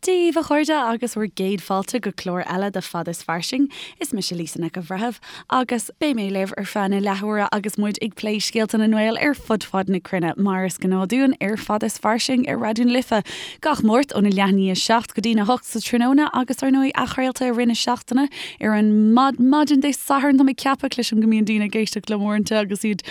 Dia daoibh a chairde agus bhur gcéad fáilte go clár eile de Fada is Fairsing. Is mise Lisa Nic an Bhreithimh agus beidh mé libh ar feadh na leathuaire agus muid ag plé scéalta na nGael ar fud fad na cruinne, mar is gnáth dúinn ar Fada is Fairsing ar Raidió na Life gach Máirt óna leath i ndiaidh 7 go dtína 8 sa tráthnóna agus ar ndóigh athchraolta i rith na seachtaine ar an maidin Dé Sathairn. Tá mé ag ceapadh, cloisim go mbíonn daoine ag éisteacht liom uaireanta agus iad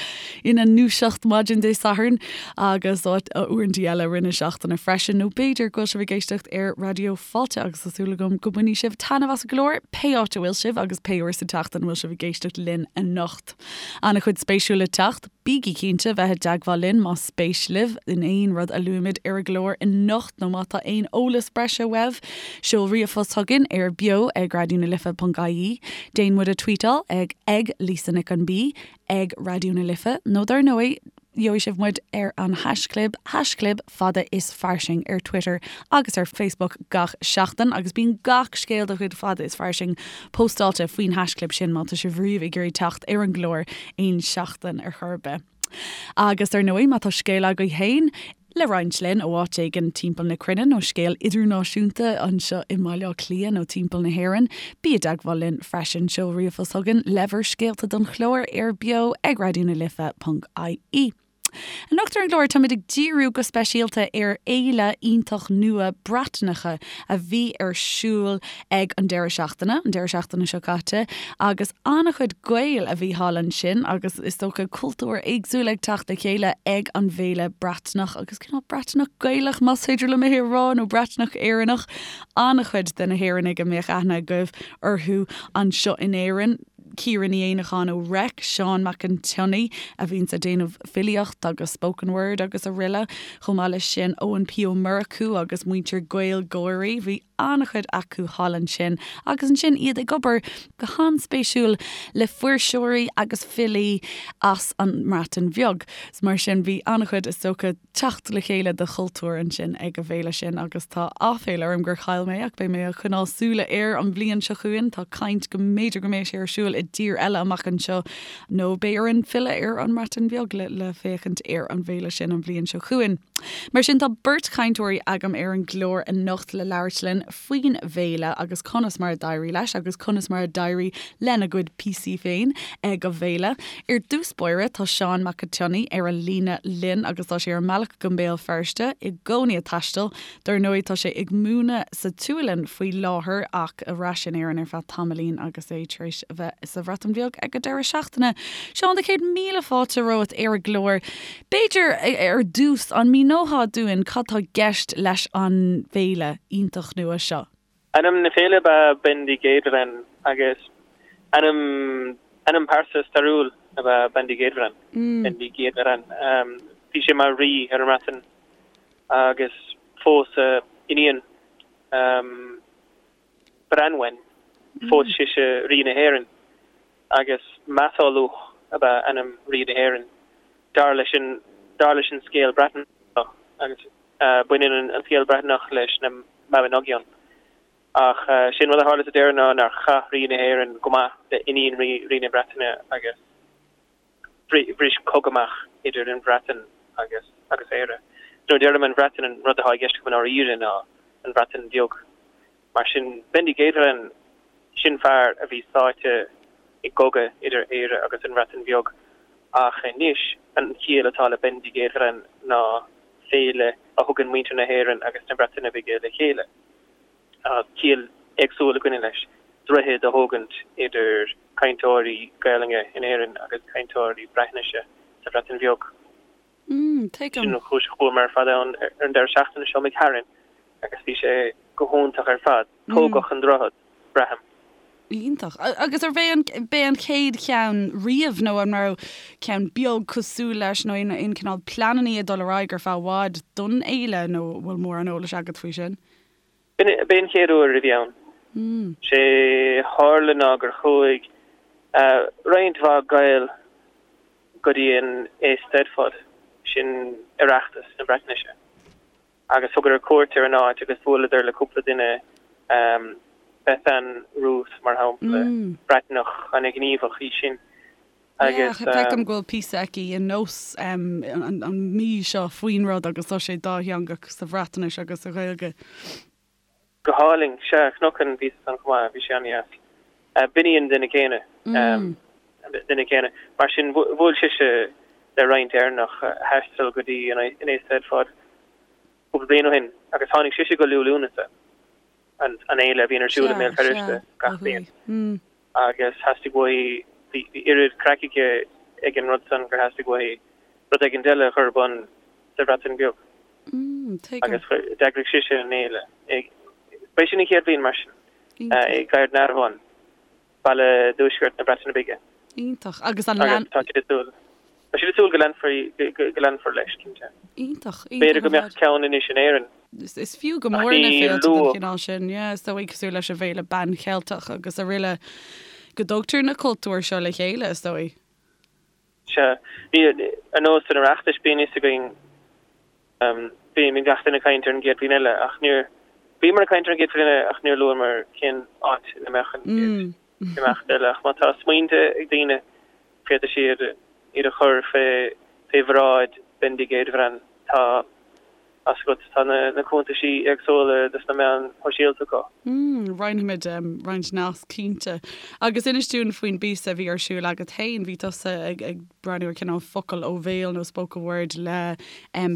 ina ndúiseacht maidin Dé Sathairn. agus uaireanta eile i rith na seachtaine freisin, nó b'fhéidir go bhfuil sibh ag éisteacht ar Raidió Fáilte agus tá súil agam go mbainfidh sibh taitneamh as an gclár, pé áit a bhfuil sibh agus pé uair sa tseachtain a bhfuil sibh ag éisteacht linn anocht. An-chuid spéisiúil le teacht, bígí cinnte bheith i dteagmháil linn más spéis libh in aon rud a luaimid ar an gclár anocht nó má tá aon eolas breise uaibh, seol ríomhphost chugainn ar beo ag raidionalife.ie, déan muid a tweetáil ag ag Lisa Nic an B, ag Raidió na Life nó dar ndóigh, Gheobhaidh sibh muid ar an haischlib, haischlib fada is fairsing ar Twitter agus ar Facebook gach seachtain agus bíonn gach scéal de chuid Fada is Fairsing póstáilte faoin haischlib sin má tá sibh riamh ag iarraidh teacht ar an gclár aon seachtain ar chor ar bith. Agus ar ndóigh má tá scéal agaibh féin le roinnt linn ó áit éigin timpeall na cruinne nó scéal idirnáisiúnta anseo i mBaile Átha Cliath nó timpeall na hÉireann, bí i dteagmháil linn freisin. Seol ríomhphost chugainn le bhur scéalta don chlár ar beo ag raidionalife.ie. Anocht ar an gclár táimid ag díriú go speisialta ar fhéile iontach nua Breatnaise a bhí ar siúl ag an deireadh seachtaine, an deireadh seachtaine seo caite, agus an-chuid Gael a bhí thall ansin agus is dócha cultúir éagsúla ag teacht le chéile ag an bhféile Breatnach agus cineál Breatnach Gaelach más féidir liom é a rá nó Breatnach Éireannach. An-chuid de na hÉireannaigh a mbeadh aithne agaibh orthu anseo in Éirinn, Ciara Ní Éanacháin ó Reic, Seán Mac an tSionnaigh a bhíonns ag déanamh filíocht agus spoken word agus araile, chomh maith leis sin Eoin P Ó Murchú agus muintir GaelGáirí. Bhí an-chuid acu thall ansin agus ansin iad ag obair go han-spéisiúil le fuirseoirí agus filí as an mBreatain Bheag. Mar sin bhí an-chuid, is dócha, teacht le chéile de chultúir ansin ag an bhféile sin agus tá áiféala orm gur chaill mé ach beidh mé ag coinneáil súile air an bhliain seo chugainn. Tá caint go mb'fhéidir go mbeidh sé ar siúl i dtír eile amach anseo nó beidh orainn filleadh ar an mBreatain Bheag le le féachaint ar an bhféile sin an bhliain seo chugainn. Mar sin tá beirt chainteoirí agam ar an gclár anocht le labhairt linn faoin bhféile agus conas mar a d'éirigh leis agus conas mar a d'éirigh lena gcuid píosaí féin ag an bhféile. Ar dtús báire tá Seán Mac an tSionnaigh ar an líne linn agus tá sé ar an mbealach go mBéal Feirste i gcónaí ag taisteal. Dar ndóigh tá sé ag múineadh sa tSualainn faoi láthair ach ar ais in Éirinn ar feadh tamaillín agus é tar éis a bheith sa Bhreatain Bheag ag an deireadh seachtaine. Seán, do chéad míle fáilte romhat ar an gclár. B'fhéidir, ar dtús, an míneofá dúinn cad tá i gceist leis an bhféile iontach nua seo? Ainm na féile ab ea Bendigeidfran agus ainm ainm pearsa stairiúil ab ea Bendigeidfran, Bendigeidfran. Bhí sé mar rí ar an mBreatain agus phós a iníon Branwen, phós sise rí na hÉireann agus Matholwch ab ea ainm rí na hÉireann, dar leis an dar leis an scéal Breatnach, agus baineann an scéal Breatnach leis na Mabinogion. Ach sé'n rud a tharla sa deireadh ná nár chaith rí na hÉireann go maith le iníon rí na Breataine agus bhris cogadh amach idir an Bhreatain agus agus Éire. Nuair a deirim an Bhreatain an rud atá i gceist agam i ndáiríre ná an Bhreatain Bheag. Mar sin, Bendigeidfran, sin fear a bhí sáite i gcogadh idir Éire agus an Bhreatain Bheag. Ach anois, an chiall atá le Bendigeidfran ná féile a thugann muintir na hÉireann agus na Breataine Bige le chéile. Tá ciall éagsúil ag goil leis, droichead a thógaint idir cainteoirí Gaelainne in Éirinn agus cainteoirí Breatnaise sa Bhreatain Bheag. Tuigim. Sin an chúis a chuamar ar fad ann ar an deireadh seachtaine seo imigh tharainn agus bhí sé go hiontach ar fad. Tógadh an droichead, braithim. Iontach. Agus arbh é an, b'é an chéad cheann riamh nó an raibh ceann beag cosúil leis nó aon, aon cineál pleanannaí ag dul ar aghaidh ar feadh i bhfad don fhéile nó an bhfuil mórán eolais agat faoi sin? B'é an chéad uair a bhí ann. Sé tharla ná gur chuaigh roinnt mhaith Gael go dtí an Eisteddfod, sin Oireachtas na Breatnaise, agus thugadar cuairt ar an áit agus bhuaileadar le cúpla duine, Bethan Ruth mar shampla, Breatnach ana-ghníomhach í sin, agus. Yeah, feicim go bhfuil píosa aici i Nós an mhí seo faoin rud agus tá sé dátheangach sa Bhreatnais agus sa Ghaeilge. Go hálainn. Sea, Cnocán, bhíos ansan chomh maith, bhí sé an-dheas. B'in í an duine céanna. Duine céanna. Mar sin, bhuail sise le roinnt Éireannach a thaistil go dtí an Eisteddfod cúpla bliain ó shin agus tháinig sise go Liú Lúnasa, an fhéile a bhíonn ar siúl i mBéal Feirste gach bliain. Agus theastaigh uaithi, bhí oiread craic aici ag an rud san gur theastaigh uaithi rud éigin eile a chur ar bun sa Bhreatain Bheag. Agus d'eagraigh sise an fhéile. Ba é sin an chéad bhliain mar sin, i Gaernarfon, baile i dtuaisceart na Breataine Bige. Iontach. Agus an lean. Agus tá siad ag súil. Tá siad ag súil go leanfar, go leanfar leis, cinnte. Iontach. Iontach B'fhéidir go mbeadh ceann anois in Éirinn. Is fiú go mór na féilte den chineál sin, yeah, is dóigh, cosúil leis an bhFéile Ban Cheilteach agus araile, go dtugtar na cultúir seo le chéile, is dóigh. Sea. Ní, ar nós an Oireachtais, bíonn fhios againn, bíonn gach duine ag caint ar an gcéad bhliain eile, ach níor, bhíomar ag caint ar an gcéad bhliain eile ach níor luamar cén áit ina mbeadh an chéad imeacht eile. Ach má tá smaointe ag daoine, féadfaidh siad iad a chur fé, fé bhráid Bendigeidfran. Tá. Fhios agat, tá na cuntaisí éagsúla dos na meáin shóisialta acu. Mm, roinnfimid roinnt nasc cinnte. Agus inis dúinn faoin bpíosa a bhí ar siúl agat féin, bhí tusa ag ag breathnú ar cineál focal ó bhéal nó spoken word le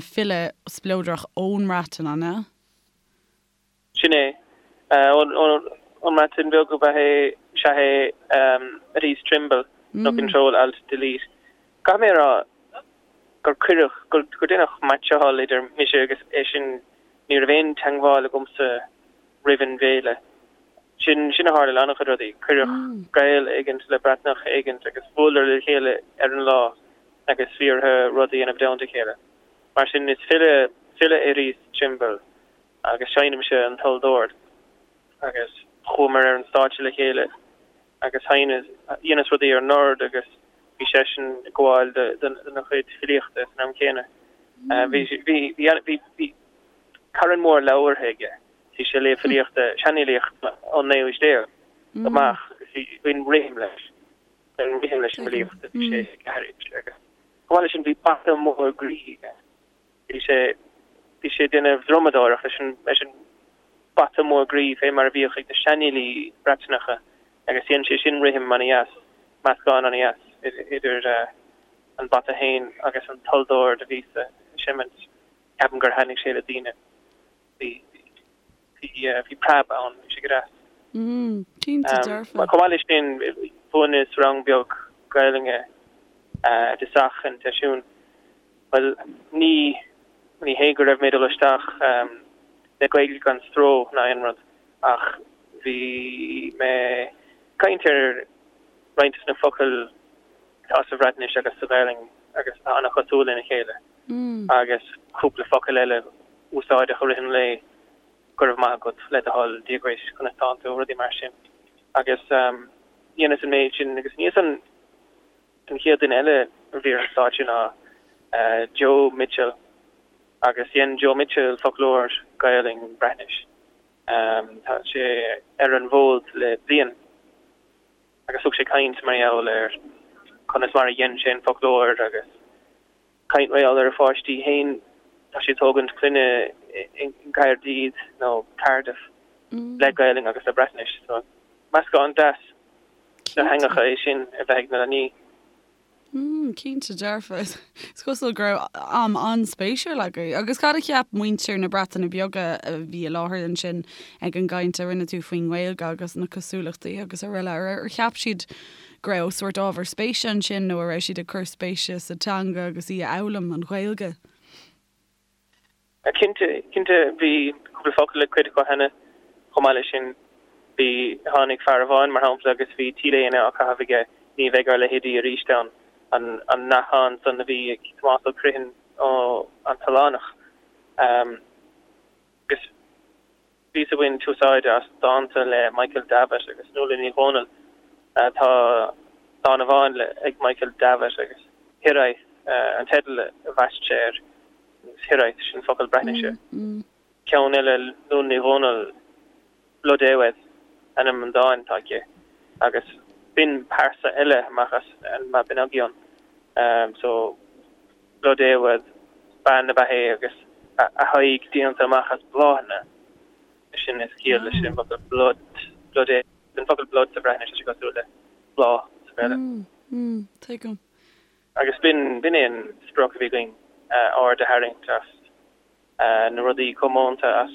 file spleodrach ón mBreatain, an ea? Sin é. Ón mBreatain Bheag ab ea é, sea é, Rhys Trimble, nó Control Alt Delete. Caithfidh mé a rá gur cuireadh, gur deineadh meaitseáil idir mise agus eisean, ní raibh aon teangmháil agamsa roimh an bhféile. Sin, sin a tharla le an-chuid rudaí, cuireadh Gael éigint le Breatnach éigint agus bhuaileadar le chéile ar an lá agus bhí orthu rud a dhéanamh i dteannta a chéile. Mar sin, is file, file é Rhys Trimble. agus seinnimse an tulldord agus chuamar ar an stáitse le chéile agus sheinneas, dheineas rudaí ar an ord agus bhí seisean ag gabháil dona chuid filíochta san am céanna. Bhí, bhí, bhí, bhí, bhí carn mór leabhartha aige, bhí sé ag léamh filíochta, seanfhilíocht ón naoú haois déag amach agus bhí, bhí an rithim leis, bhí an rithim leis an bhfilíocht a bhí sé ag aithris agus chomh maith leis sin bhí bata mór groí aige. Bhí sé, bhí sé ag déanamh drumadóireacht leis an, leis an bata mór groí fé mar a bhíodh ag na seanfhilí Breatanacha agus dhein sé sin rithim ana-dheas, meascán ana-dheas idir an bata féin agus an tulldord a bhíos a seimint. Ceapaim gur thaitnigh sé le daoine. Bhí, bhí preab ann, bhí sé go deas. Cinnte dearfa. Chomh maith leis sin, mhúineas rang beag Gaelainne i dtosach an tseisiúin. Bhuel, ní, ní hé go raibh mé ag dul isteach le Gaeilge gan stró ná aon rud, ach bhí mé ag caint ar roinnt de na focail atá sa Bhreatnais agus sa Ghaelainn agus atá an-chosúil lena chéile, agus cúpla focal eile úsáideach i rith an lae, go raibh maith agat, le do thoil, Dia dhuit, conas tánn tú, rudaí mar sin. Agus dheineas an méid sin agus níos an. An chéad duine eile a bhí ar an stáitse ná Joe Mitchell agus dhein Joe Mitchell foclóir Gaelainn Breatnais. Tá sé ar an bhfód le bliain agus thug sé caint mar gheall ar conas mar a dhein sé an foclóir agus caint mar gheall ar a pháistí féin. Tá sé ag tógaint clainne i gCaerdydd nó Cardiff le Gaelainn agus le Breatnais. So meascán deas de theangacha é sin a bheith ag na leanaí. Mm, cinnte dearfa. Is cosúil go raibh am an-spéisiúil agaibh. Agus cad a cheap muintir na Breataine Bige a bhí i láthair ansin ag an gcaint a rinne tú faoin nGaeilge agus na cosúlachtaí agus araile? Ar cheap siad go raibh sórt ábhar spéise ansin nó a raibh siad ag cur spéise sa teanga agus í a fhoghlaim, an Ghaeilge? Cinnte, cinnte, bhí cúpla focal ag cuid acu cheana. Chomh maith leis sin, bhí, tháinig fear amháin, mar shampla, agus bhí T-léine á caitheamh aige, ní bheidh ár leithéidí arís ann, an, an nathán san a bhí ag Tomás Ó Criomhthain ó An tOileánach. Agus. Bhíos ag baint úsáide as dánta le Michael Davitt agus Nuala Ní Dhomhnaill. Tá dán amháin ag Michael Davitt agus Hiraeth an teideal a bhaist sé air. Agus Hiraeth, sin focal Breatnaise. Ceann eile, Nuala Ní Dhomhnaill, Blodeuwedd ainm an dáin atá aici. Agus b'in pearsa eile amach as an Mabinogion. So. Blodeuwedd, bean ab ea é agus a haghaidh déanta amach as bláthanna. Sin is ciall leis an bhfocal blod, blodeuwedd. An focal blod sa Bhreatnais, tá sé cosúil le bláth sa Bhéarla. Tuigim. Agus b'in, b'in é an sprioc a bhí againn, aird a tharraingt as na rudaí comónta, as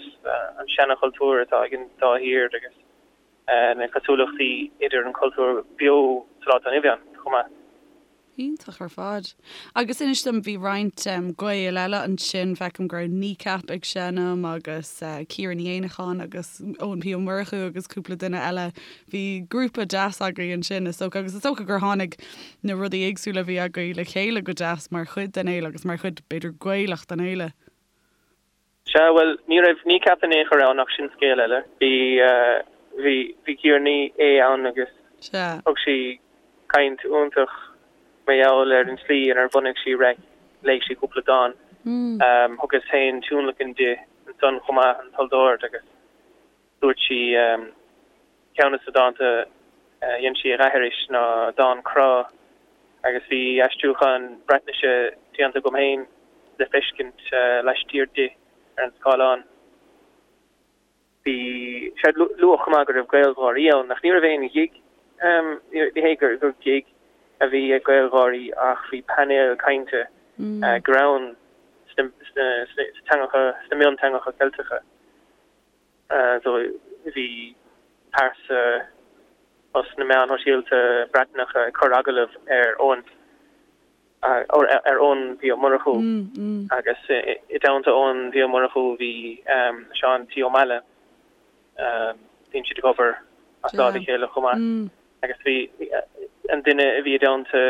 an seanchultúr atá ag an dá thír agus na cosúlachtaí idir an cultúr beo sa lá atá inniu ann chomh maith. Iontach ar fad. Agus inis dom, bhí roinnt Gael eile ansin, feicim go raibh Kneecap ag seinm agus Ciara Ní Éanacháin agus Eoin P Ó Murchú agus cúpla duine eile. Bhí grúpa deas agaibh ansin is dócha agus is dócha gur tháinig na rudaí éagsúla a bhí agaibh le chéile go deas mar chuid den fhéile agus mar chuid b'fhéidir Gaelach den fhéile. Sea, bhuel, ní raibh Kneecap in aon chor ann ach sin scéal eile. Bhí, bhí, bhí Ciara Ní É ann agus Sea. thug sí caint iontach mar gheall ar an tslí inar bhunaigh sí Reic, léigh sí cúpla dán. Thugas féin tionlacan di ansan chomh maith, an Tulldord, agus dúirt sí, Ceann de na dánta a dhein sí a dh'aithris ná dán crá agus bhí aistriúchán Breatnaise déanta agam féin le feiscint laistiar di ar an scáileán. Bhí sé luadh chomh maith go raibh GaelGÁIRÍ ann ach ní raibh aon ghig, ní hé gur gig a bhí ag GaelGÁIRÍ ach bhí painéal cainte greann sna teangacha, sna mionteangacha Ceilteacha. So bhí pearsa as na meáin shóisialta Breatnacha ag cur agallamh ar Eoin, ar Eoin P Ó Murchú agus i dteannta Eoin P Ó Murchú bhí Seán T Ó Meallaigh, bíonn siad ag obair as láimh a chéile chomh maith agus bhí an duine a bhí i dteannta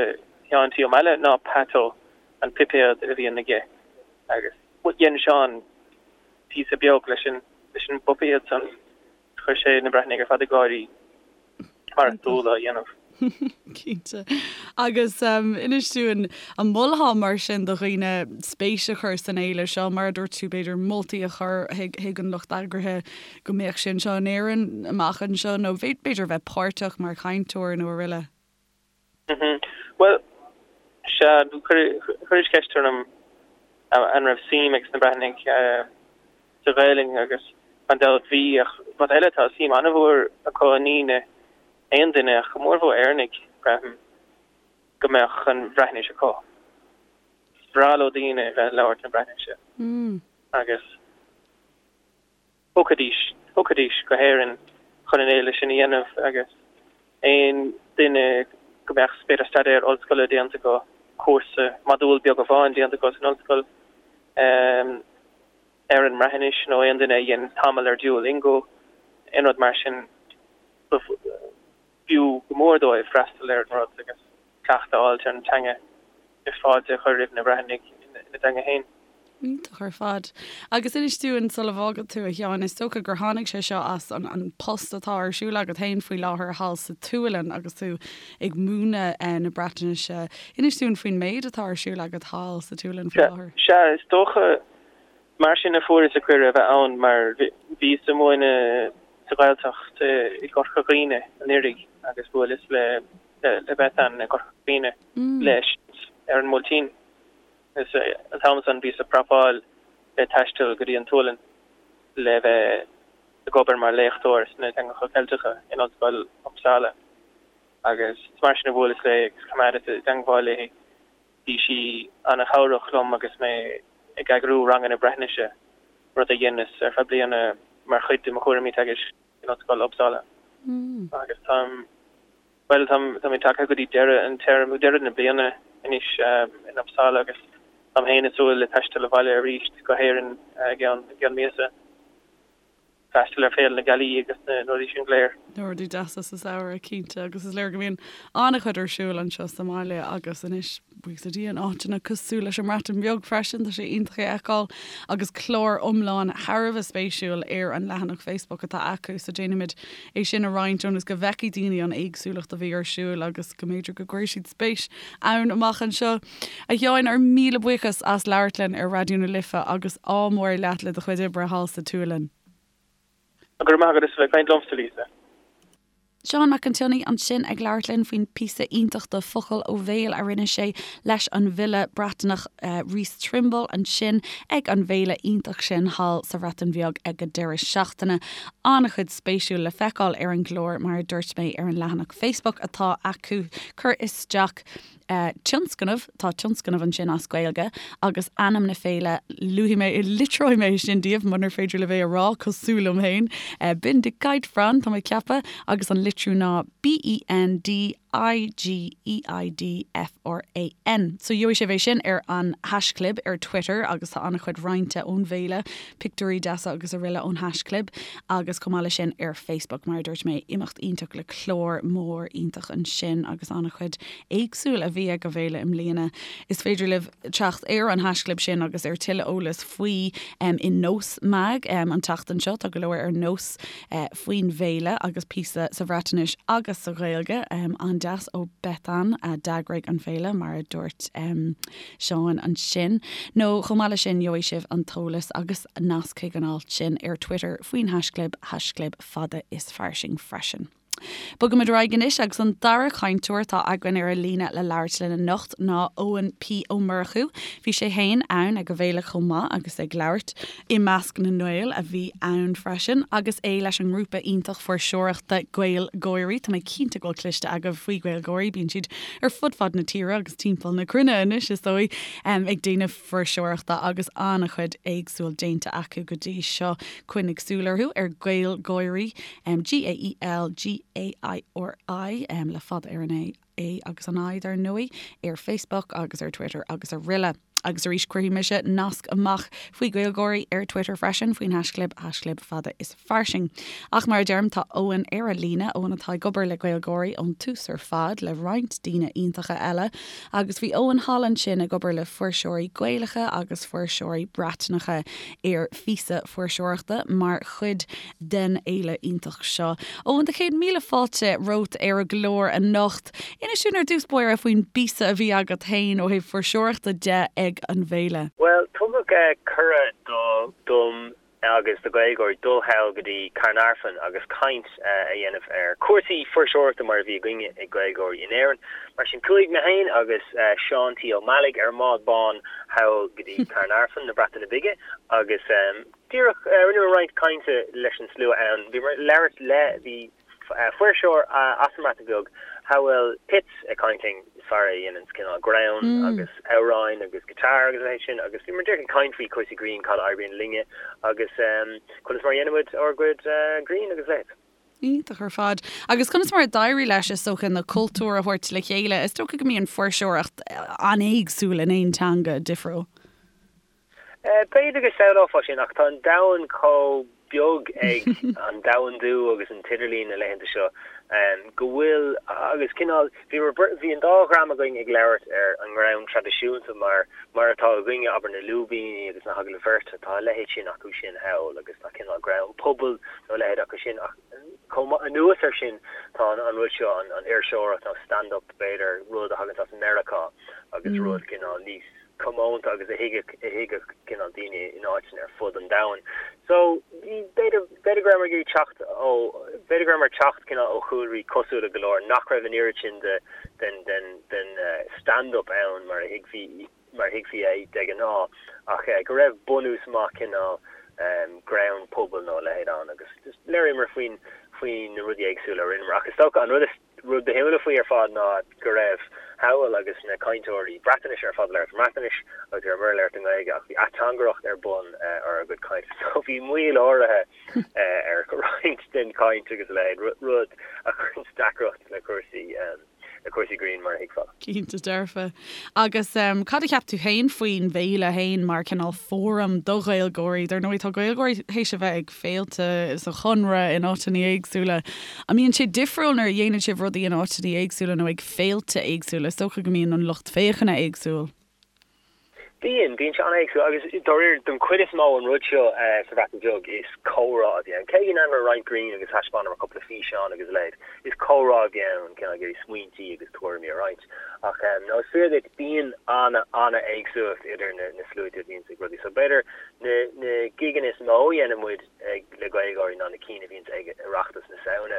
Sheáin T Ó Meallaigh ná Pato, an puipéad a bhíonn aige agus dhein Seán píosa beag leis an leis an bpuipéad san. Chuir sé na Breatnaigh ar fad ag gáirí, mar is dual a dhéanamh. Cinnte. Agus inis dúinn, an molfá mar sin do dhaoine spéis a chur san fhéile seo, mar a dúirt tú, b'fhéidir moltaí a chur chuig an lucht eagraithe go mbeadh sé anseo in Éirinn amach anseo nó b'fhéidir bheith páirteach mar chainteoir nó araile? Bhuel, sea, chuiris ceist orm an raibh suim ag na Breatnaigh sa Ghaelainn agus gan dabht bhí, ach rud eile, tá suim an-mhór acu i ndaoine, aon duine, ach go mórmhór Éireannaigh, braithim, go mbeadh an Bhreatnais acu. Is breá leo daoine a bheith ag labhairt na Breatnaise agus. Thiocfaidís, thiocfaidís go hÉirinn chun an fhéile sin a dhéanamh agus aon duine go mbeadh b'fhéidir staidéar ollscoile déanta acu, cúrsa, modúl beag amháin déanta acu san ollscoil ar an mBreatnais nó aon duine a dhein tamall ar Duolingo, aon rud mar sin, b'fhiú go mór dóibh freastal ar an rud agus cleachtadh a fháilt ar an teanga is fáilte a chur roimh na Breatnaigh ina dteanga féin. Iontach ar fad. Agus inis dúinn sula bhfágfaidh tú, a Sheáin, is dócha gur tháinig sé seo as an an post atá ar siúl agat féin faoi láthair thall sa tSualainn agus tú ag múineadh na Breatnaise. Inis dúinn faoin méid atá ar siúl agat thall sa tSualainn faoi láthair. Sea, is dócha Mar sin a fuaireas an cuireadh a bheith ann mar bhíos ag múineadh sa Ghaeltacht i gCorca Dhuibhne anuraidh agus bhuaileas le le Bethan i gCorca Dhuibhne leis ar an mBuailtín. Agus an t-am san bhíos ag prapáil le taisteal go dtí an tSualainn le bheith ag obair mar léachtóir sna teangacha Ceilteacha in Ollscoil Uppsala. Agus is mar sin a bhuaileas léi agus choimeádas i dteangmháil léi. Bhí sí an-chabhrach liom agus mé ag eagrú ranganna Breatnaise, rud a dheineas ar feadh bliana mar chuid de mo chúraimí teagaisc in Ollscoil Uppsala. Agus táim, bhuel, táim, táimid tagtha go dtí deireadh an téarma, deireadh na bliana anois in Uppsala agus táim féin ag súil le taisteal abhaile arís go hÉirinn i gceann, i gceann míosa. freastal ar Féile na Gealaí agus na rudaí sin go léir. Na rudaí deasa sa samhradh, cinnte, agus is léir go mbíonn an-chuid ar siúl anseo sa mbaile agus anois, buíochas le Dia, in áiteanna cosúil leis an mBreatain Bheag freisin, tá sé iontach é a fheiceáil agus clár iomlán thar a bheith spéisiúil ar an leathanach Facebook atá acu so déanfaimid é sin a roinnt ionas go bhfeicfidh daoine an éagsúlacht a bhí ar siúl agus go mb'fhéidir go gcuirfidh siad spéis ann amach anseo. A Sheáin, ár míle buíochas as labhairt linn ar Raidió na Life agus ádh mór leat le do chuid oibre thall sa tSualainn. Go raibh maith agat as a bheith ag caint liomsa, Lisa. Seán Mac an tSionnaigh ansin ag labhairt linn faoin píosa iontach de Focal ó Bhéal a rinne sé leis an bhfile Breatnach Rhys Trimble ansin ag an bhféile iontach sin thall sa Bhreatain Bheag ag an deireadh seachtaine. An-chuid spéisiúil le feiceáil ar an gclár mar a dúirt mé ar an leathanach Facebook atá acu. Cuir isteach. tionscnamh, tá tionscnamh ansin as Gaeilge agus ainm na féile, luafaidh mé, litreoidh mé sin daoibh munar féidir libh é a rá cosúil liom féin, Bendigeidfran, tá mé ag ceapadh, agus an litriú ná B-E-N-D-I-G-E-I-D-F-R-A-N. So gheobhaidh sibh é sin ar an haischlib ar Twitter agus tá an-chuid roinnte ón bhféile, pictiúirí deasa agus araile ón haischlib agus chomh maith leis sin ar Facebook, mar a dúirt mé, imeacht iontach le clár mór iontach ansin agus an-chuid éagsúil a bhí ag an bhféile i mbliana. Is féidir libh teacht ar an haischlib sin agus ar tuilleadh eolas faoi i Nós Mag an tseachtain seo. Tá go leor ar Nós faoin bhféile agus píosa sa Bhreatnais agus sa Ghaeilge. An-deas ó Bethan a d'eagraigh an féile, mar a dúirt Seán ansin. Nó chomh maith leis sin gheobhaidh sibh an t-eolas agus nasc chuig an alt sin ar Twitter faoin haischlib, haischlib fada is fairsing freisin. Bogaimid ar aghaidh anois agus an dara cainteoir atá againn ar an líne le labhairt linn anocht ná Eoin P Ó Murchú. Bhí sé féin ann ag an bhféile chomh maith agus ag labhairt i measc na nGael a bhí ann freisin agus é leis an ngrúpa iontach fuirseoireachta GaelGáirí. Tá mé cinnte go bhfuil cloiste agaibh faoi GaelGáirí, bíonn siad ar fud fad na tíre agus timpeall na cruinne anois is dóigh ag déanamh fuirseoireachta agus an-chuid éagsúil déanta acu go dtí seo. Coinnigh súil orthu ar GaelGáirí, G-A-E-L-G-A-I-R-I, le fada ar an A, A agus an I, dar ndóigh, ar Facebook agus ar Twitter agus araile. Agus arís cuirfidh mise nasc amach faoi GaelGáirí ar Twitter freisin, faoin haischlib, haischlib fada is fairsing. Ach mar a deirim, tá Eoin ar an líne, Eoin atá ag obair le GaelGáirí ón tús ar fad, le roinnt daoine iontacha eile, agus bhí Eoin thall ansin ag obair le fuirseoirí Gaelacha agus fuirseoirí Breatnacha ar phíosa fuirseoireachta mar chuid den fhéile iontach seo. Eoin, do chéad míle fáilte romhat ar an gclár anocht. Inis dúinn ar dtús báire faoin bpíosa a bhí agat féin ó thaobh fuirseoireachta de ag an bhféile. Bhuel, tugadh cuireadh dom agus do GaelGáirí dul thall go dtí Caernarfon agus caint a dhéanamh ar chúrsaí fuirseoireachta mar a bhí againne ag GaelGáirí in Éirinn. Mar sin chuaigh mé féin agus Seán T. Ó Meallaigh ar an mbád bán thall go dtí Caernarfon na Breataine Bige agus díreach rinneamar roinnt cainte leis an slua ann. Bhíomar ag labhairt le, bhí fuirseoir as an mBreatain Bheag, Hywel Pitts, ag caint linn, fear a dhéananns cineál greann agus amhráin agus guitar agus a leithéid sin agus bhíomar díreach ag caint faoi chúrsaí grinn, cad a oibríonn linne agus conas mar a dhéanaimid ár gcuid grinn agus a leithéid. Iontach ar fad. Agus conas mar a d'éirigh leis, is dócha, na cultúir a thabhairt le chéile? Is dócha go mbíonn fuirseoireacht an-éagsúil in aon teanga difriúil. B'fhéidir go samhlófá sin, ach tá an domhan chomh beag ag an domhandú agus an t-idirlíon na laethanta seo go bhfuil, agus cineál, bhíomar, bhí an dá dhream againn ag labhairt ar an ngreann traidisiúnta mar, mar atá againne, abair na lúibíní agus na hagallaimh bheirte, tá a leithéid sin acu sin thall agus tá cineál greann pobail nó a leithéid acu sin ach chomh maith, anuas air sin tá an rud seo, an fhuirseoireacht nó stand-up b'fhéidir, rud a thaganns as Meiriceá agus rud cineál níos. comónta agus a thuigfeadh, a thuigfeadh cineál daoine in áiteanna ar fud an domhain. So, b'fhéidir, b'fhéidir go rabhamar ag iarraidh teacht ó, b'fhéidir go rabhamar ag teacht cineál ó chúlraí cosúla go leor, nach raibh an oiread sin de, den, den, den stand-up ann mar a thuigfí, mar a thuigfí é de ghnáth, ach go raibh bunús maith cineál greann pobail nó a leithéid ann agus just labhraíomar faoin, faoi na rudaí éagsúla a rinneamar. Ach is dócha an rud is. rud ba shuimiúla faoi ar fad ná go raibh Hywel agus na cainteoirí Breatnaise ar fad ag labhairt i mBreatnais agus bhí muid ag labhairt i nGaeilge ach bhí ateangaireacht ar bun ar ár gcuid cainte so bhí moill áirithe ar roinnt den chaint agus a leithéid, rud a chuireann deacracht le cúrsaí le cúrsaí grinn mar a thuigfeá. Cinnte dearfa. Agus cad a cheap tú féin faoin bhféile féin mar cineál fóram do Ghaeilgeoirí? Dar ndóigh tá Gaeilgeoirí théis a bheith ag féilte sa Chonradh in áiteanna éagsúla. An mbíonn sé difriúil nuair a dhéanann sibh rudaí in áiteanna éagsúla nó ag féilte éagsúla? Is dócha go mbíonn an lucht féachana éagsúil. Bíonn, bíonn sé an-éagsúil agus dáiríre don chuid is mó an rud seo sa Bhreatain Bheag is comhrá a bhí ann. Cé go ndearnamar roinnt grinn agus thaispeánamar cúpla físeán agus a leithéid, is comhrá a bhí ann, cineál ag iarraidh smaointí agus tuairimí a roinnt. Ach no, is fíor duit, bíonn an-an-éagsúlacht idir na na sluaite a bhíonns ag rudaí. So b'fhéidir na na gigeanna is mó a dhéanann muid ag le Gaelgáirí ná na cinn a bhíonns ag Oireachtas na Samhna.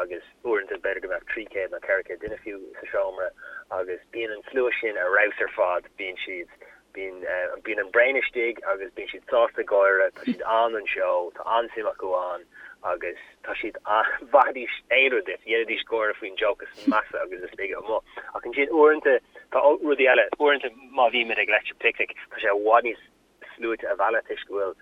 agus uaireanta b'fhéidir go mbeadh 300 nó 400 duine fiú sa seomra agus bíonn an slua sin ar fheabhas ar fad, bíonn siad, bíonn, bíonn an braon istigh agus bíonn siad sásta gáire, tá siad ann don seó, tá an-suim acu ann agus tá siad, mhaithfidís aon rud duit, dhéanfaidís gáire faoin joke is measa agus is laige amuigh. Ach ansin uaireanta tá rudaí eile, uaireanta má bhímid ag Electric Picnic tá sé i bhfad níos sluaite a mhealladh toisc go bhfuil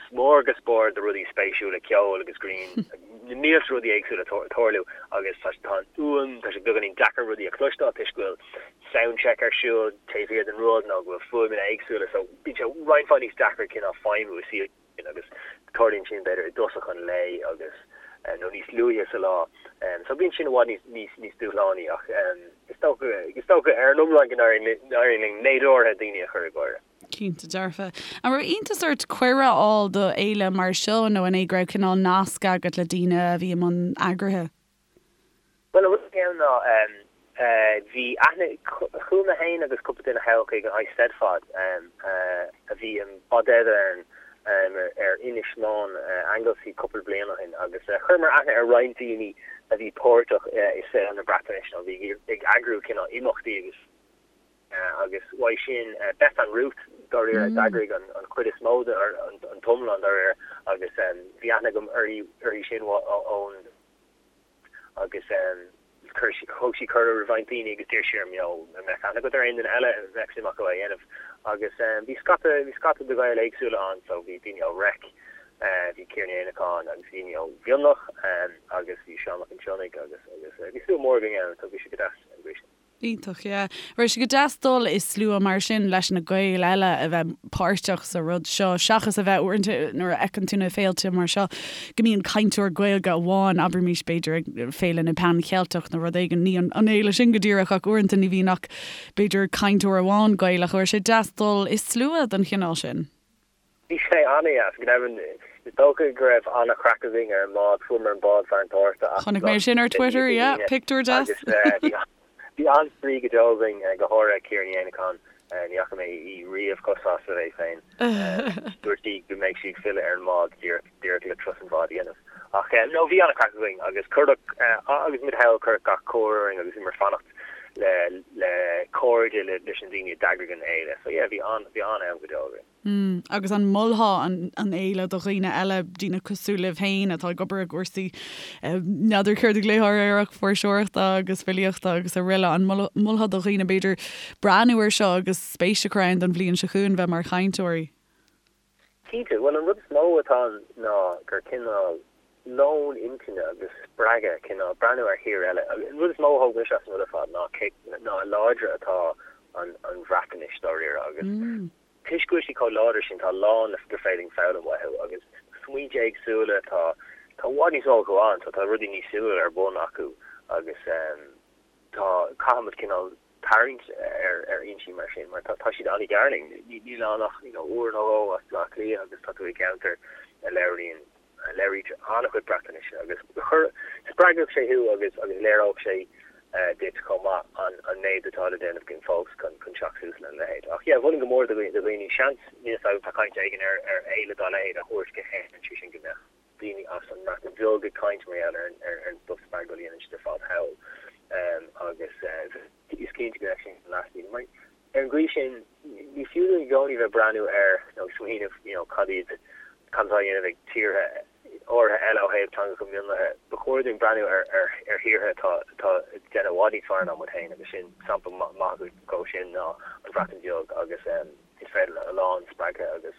smórgasbord de rudaí spéisiúla, ceol agus grinn, na mílte rudaí éagsúla ag tarlú agus tá an fhuaim, tá sé beagáinín deacair rudaí a chloisteáil toisc go bhfuil soundcheck ar siúl taobh thiar den rud nó go bhfuil fuaimeanna éagsúla so bíonn sé roinnt mhaith níos deacra cineál feidhmiú i suíomh agus tarlaíonn sin b'fhéidir i dtosach an lae agus nó níos luaithe sa lá. So bíonn sin i bhfad níos níos níos dúshlánaí ach is dócha is dócha ar an iomlán go n-éiríonn linn méid áirithe daoine a chur ag gáire. Cinnte dearfa. An raibh iontas ort cuireadh a fháil do fhéile mar seo nó an é go raibh cineál nasc agat le daoine a bhí i mbun eagraithe? Bhuel, an rud a bhí ann ná bhí aithne, chuaigh mé féin agus cúpla duine thall chuig an Eisteddfod a bhí i Bodedern ar Inis Meáin, Anglesey cúpla bliain ó shin agus chuireamar aithne ar roinnt daoine a bhí páirteach i saol na Breatnaise nó a bhí ag eagrú cineál imeachtaí agus Agus uaidh sin, Bethan Ruth, dáiríre, a d'eagraigh an chuid is mó de, an t-iomlán dáiríre, agus bhí aithne agam uirthi sin ón, agus chuir sí, thug sí cuireadh roimh roinnt daoine agus d'iarr sí orm, you know, an mbeadh aithne agat ar aon duine eile a mbeadh suim acu é a dhéanamh. Agus bhí scata, bhí scata de Ghaeil éagsúla ann, so bhí daoine ó Reic, bhí Ciara Ní Éanacháin agus bhí daoine ó Mhionlach agus bhí Seán Mac an tSionnaigh agus, agus bhí slua mór againn ann, so bhí sé go deas an gcaoi sin. Iontach, yeah. Raibh sé go deas dul i slua mar sin leis na Gaeil eile a bheith páirteach sa rud seo, seachas a bheith uaireanta nuair a fheiceann tú na féilte mar seo go mbíonn cainteoir Gaeilge amháin, abraimis b'fhéidir ag Féile na Pan Cheilteach nó rud éigin, ní an fhéile sin go díreach ach uaireanta ní bhíonn ach b'fhéidir cainteoir amháin Gaelach. Raibh sé deas dul i slua den chineál sin? Bhí sé an-deas, go deimhin. Is dócha go raibh an-chraic againn ar an mbád. Fuaireamar an bád fear an tSárta as Chonaic mé sin ar Twitter, yeah, pictiúr deas. Agus bhí an-spraoi go deo againn, go háirithe Ciara Ní Éanacháin. Ní fhaca mé í riamh chomh sásta léi féin. Dúirt sí go mbeidh sí ag filleadh ar an mbád díreach le turas an bháid a dhéanamh. Ach no, bhí an-chraic againn agus cuireadh, agus muid thall, cuireadh gach cóir orainn agus bhíomar ag fanacht le le cairde leis na daoine a d'eagraigh an fhéile. So yeah, bhí an, bhí an-am go deo againn. Mm, agus an molfá an an fhéile do dhaoine eile, daoine cosúil libh féin atá ag obair i gcúrsaí, n'fheadar céard a ghlaofá air ach fuirseoireachta agus filíochta agus araile, an molfá do dhaoine b'fhéidir breathnú air seo agus spéis a chur ann don bhliain seo chugainn bheith mar chainteoirí? Cinnte, bhuel an rud is mó atá ann ná gur cineál lón intinne agus spreagadh, cineál breathnú ar thír eile. An rud is mó a thóg mise as an rud ar fad ná cé ná a láidre atá an an Bhreatnais dáiríre agus toisc go bhfuil sí chomh láidir sin tá a lán gur féidir linn foghlaim uathu agus smaointe éagsúla, tá tá i bhfad níos mó acu ann so tá rudaí níos suimiúla ar bun acu agus tá caithfimid cineál tarraingt ar fhoinsí mar sin mar tá siad an-ghar linn. Níl ann ach you know uair nó dhó as Baile Átha Cliath agus tá tú i gceantar a labhraíonn, a labhraítear an-chuid Breatnaise agus chuir, spreagfadh sé thú agus agus léireodh sé duit chomh maith an an méid atá le déanamh againn fós chun chun teacht suas lena leithéid. Ach yeah, mholfainn go mór do dhaoine, seans, níl a fhios agam, tá caint éigin ar ar fhéile dá leithéid a thabhairt go hÉirinn, sé sin go mbeadh daoine as an mBreatain Bheag ag caint mar gheall ar ar an stuff spreagúil a dhéanann siad ar fad thall agus is cinnte go mbeadh sin leas daoine. Mar ar an gcaoi sin ní fiú dúinn i gcónaí bheith breathnú ar nó ag smaoineamh you know cad iad cad atá á dhéanamh ag tíortha áirithe eile ó thaobh teangacha mionlaithe. Ba chóir dúinn breathnú ar ar ar thíortha atá atá ag déanamh i bhfad níos fearr ná muid féin agus sin sampla maith dhó sin ná an Bhreatain Bheag agus is féidir a lán spreagtha agus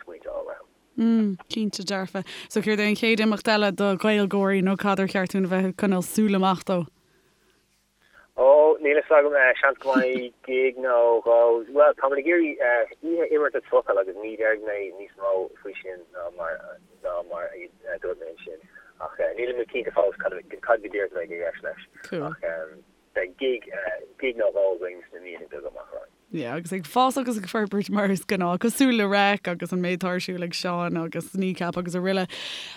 smaointe a fháil uathu. Mm, cinnte dearfa. So céard é an chéad imeacht eile do Ghaeilgeoirí nó cad ar cheart dúinn a bheith ag coinneáil súil amach dó? Ó, níl a fhios agam, seans go mbeidh gig nó dhó. Bhuel, táimid ag iarraidh oíche imeartas focal agus ní déarfaidh mé níos mó faoi sin ná mar ná mar a dúirt mé ansin. Ach nílimid cinnte fós cad cad go díreach a bheidh i gceist leis. Ach beidh gig gig nó dhó againn sna míonna beaga amach romhainn. Yeah, agus ag fás agus ag forbairt mar is gnáth, cosúil le Reic agus an méid atá ar siúl ag Seán agus Kneecap agus araile.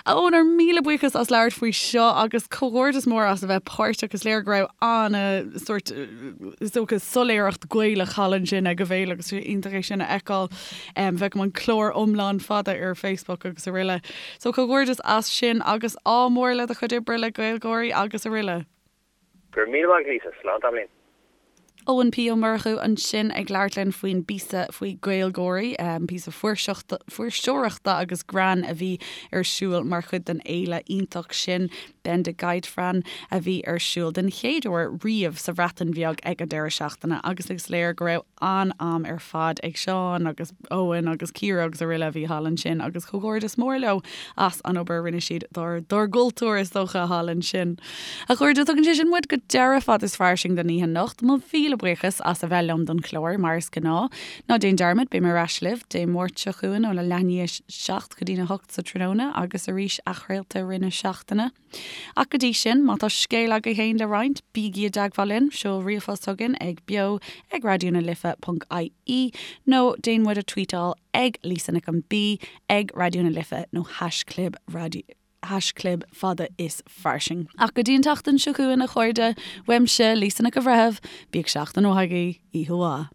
A Eoin, ár míle buíochas as labhairt faoi seo agus comhghairdeas mór as a bheith páirteach. Is léir go raibh ana sórt, is dócha, soiléireacht Gaelach thall ansin ag an bhféile agus is iontach é sin a fheiceáil. Feicim an clár iomlán fada ar Facebook agus araile. So comhghairdeas as sin agus ádh mór le do chuid oibre le GaelGÁIRÍ agus araile. Go raibh míle maith agat Lisa, slán tamaillín. Eoin P Ó Murchú ansin ag labhairt linn faoin bpíosa faoi GaelGÁIRÍ, píosa fuirseoireachta agus greann a bhí ar siúl mar chuid den fhéile iontach sin, Bendigeidfran, a bhí ar siúl den chéad uair riamh sa Bhreatain Bheag ag an deireadh seachtaine agus is léir go raibh an-am ar fad ag Seán agus Eoin agus Ciara agus araile a bhí thall ansin agus comhghairdeas mór leo as an obair a rinne siad dár dár gcultúr is dócha thall ansin. A chairde, tugann sé sin muid go deireadh Fad is Fairsing don oíche anocht. Mo mhíle buíochas as a bheith liom don chlár, mar is gnáth. Ná déan dearmad, beidh mé ar ais libh Dé Máirt seo chugainn óna leath i ndiaidh a 7 go dtína 8 sa tráthnóna agus arís athchraolta i rith na seachtaine. Ach go dtí sin, má tá scéal agaibh féin le roinnt, bígí i dteagmháil linn, seol ríomhphost chugainn ag beo ag raidió na life ponc ie nó déan muid a tweetáil ag Lisa Nic an B ag Raidió na Life nó haischlib raidió haischlib fada is fairsing. Ach go dtí an tseachtain seo chugainn, a chairde, uaimse, Lisa Nic an Bhreithimh, bíodh seachtain mhaith agaibh, oíche mhaith.